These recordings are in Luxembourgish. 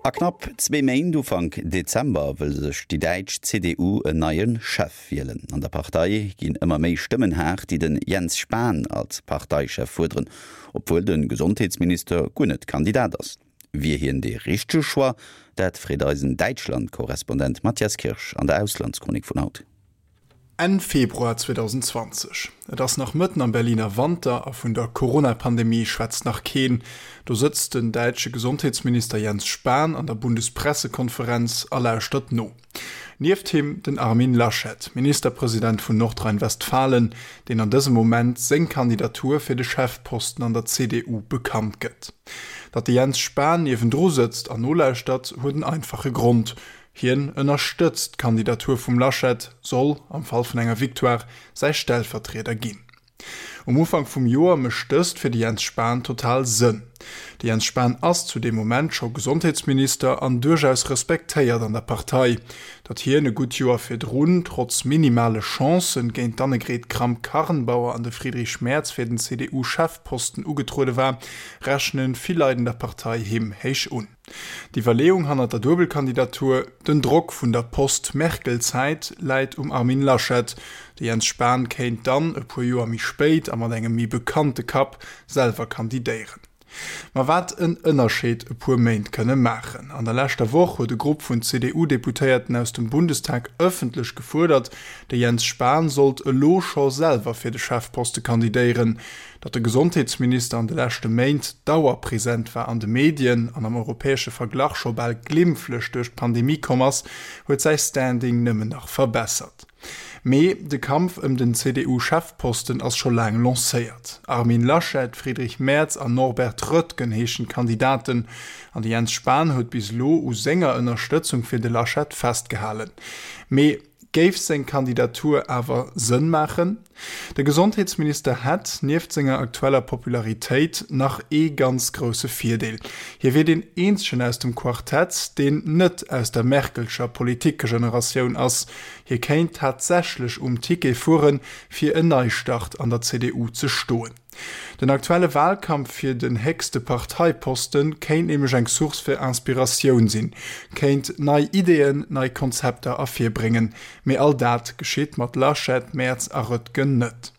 A knapp zwee Méint, Ufank Dezember, wëll sech déi däitsch CDU en neie Chef wielen. An der Partei ginn ëmmer méi Stëmmen haart, déi den Jens Spahn als Parteichef fuerderen, obwuel de Gesondheetsminister guer net Kandidat ass. Wier hien dee richtege Choix? Dat freet eisen Däitschland-Korrespondent Matthias Kirsch an der Auslandschronik vun haut. Enn Februar 2020, et ass nach mëtten am Berliner Wanter a vun der Corona-Pandemie schwätzt nach keen. Do sëtzt den däitsche Gesondheetsminister Jens Spahn an der Bundespressekonferenz a lauschtert no. Nieft him den Armin Laschet, Ministerpresident vun Nordrhein-Westfalen, deen an dësem Moment seng Kandidatur fir de Chefposten an der CDU bekannt gëtt. Datt de Jens Spahn niewendru sëtzt an nolauschtert, huet en einfache Grond, Hien ënnerstëtzt d'Kandidatur vum Laschet, soll, am Fall vun enger Victoire, säi Stellvertrieder ginn. Um Ufank vum Joer mécht dëst fir de Jens Spahn total Sënn. De Jens Spahn ass zu deem Moment scho Gesondheetsminister an duerchaus respektéiert an der Partei. Datt hien e gutt Joer virdrun, trotz minimale Chancen, géint d'Annegret Kramp-Karrenbauer an de Friedrich Merz fir den CDU-Chefposten ugetruede war, rechne vill Leit an der Partei him héich un. D'Iwwerleeung hannert der Duebelkandidatur, Den Drock vun der Post-Merkel-Zäit läit um Armin Laschet. De Jens Spahn kéint dann, e puer Joer méi spéit a mat engem méi bekannte Kapp, selwer kandidéieren. Ma wat en Ënnerscheed e puer Méint kënne maachen. An der leschter Woch huet e Grupp vun CDU-Deputéierten aus dem Bundestag ëffentlech gefuerdert, de Jens Spahn sollt elo scho selwer fir de Chefposte kandidéieren. Datt de Gesondheetsminister an de leschte Méint dauerpresent war an de Medien an am europäesche Verglach scho bal glimpflech duerch d'Pandemie komm ass, huet säi Standing nëmmen nach verbessert. Mee de Kampf ëm den CDU-Chefposten ass scho laang lancéiert. Armin Laschet, Friedrich Merz an Norbert Röttgen heeschen d'Kandidaten. An de Jens Spahn huet bis elo u senger Ënnerstëtzung fir de Laschet festgehalen. Mee Géif seng Kandidatur awer Sënn maachen? De Gesondheetsminister hätt, nieft senger aktueller Popularitéit, nach ee ganz grousse Virdeel, Hie wier deen eenzegen aus dem Quartett, deen net aus der Merkelscher Politikgeneratioun ass. Hie kéint tatsächlech um Ticket fueren, fir en Neistart an der CDU ze stoen. Den aktuelle Wahlkampf fir den héchste Parteiposten kéint nämlech eng Source fir Inspiratioun sinn, kéint nei Ideeën, nei Konzepter ervirbréngen. Mee all dat geschitt mat Laschet, Merz a Röttgen net.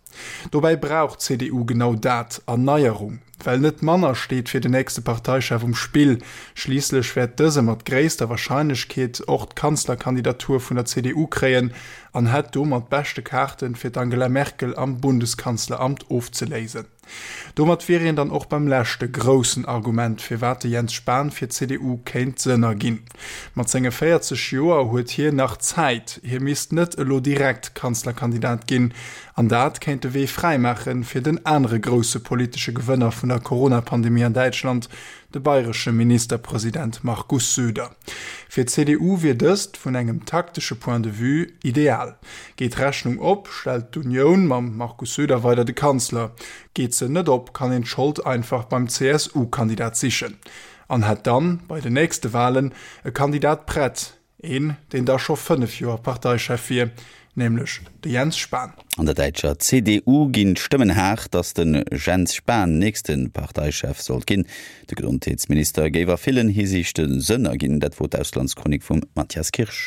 Dobäi brauch d'CDU genau dat, Erneierung. Well net manner steet fir den nächste Parteichef um Spill. Schliisslech wäert dëse mat gréisster Warscheinlechkeet och d'Kanzlerkandidatur vun der CDU kréien an hätt domat beschte Kaarten, fir d'Angela Merkel am Bundeskanzleramt ofzeléisen. Domat wier een dann och beim leschte groussen Argument, firwat de Jens Spahn fir d'CDU kéint Sënn erginn. Mat senge 40 Joer huet hien nach Zäit, hie misst net elo direkt Kanzlerkandidat ginn. An dat kéint de Wee fräimaache fir den anere grousse politesche Gewënner vun der Corona-Pandemie an Däitschland, de bayresche Ministerpresident Markus Söder. Fir d'CDU wier dëst, vun engem taktesche Point de vue, ideal. Geet d'Rechnung op, stellt d'Unioun mam Markus Söder weider de Kanzler. Geet se net op, kann een d'Schold einfach beim CSU-Kandidat sichen an hätt dann, bei den nächste Walen, e Kandidat prett, Een, deen da scho 5 Joer Parteichef wier, nämlech de Jens Spahn. An der däitscher CDU ginn d'Stëmmen haart, datt de Jens Spahn nächste Parteichef sollt ginn. De Gesondheetsminister géif a villen Hisiichte Sënn erginn. Dat wor d'Auslandschronik vum Mathias Kirsch.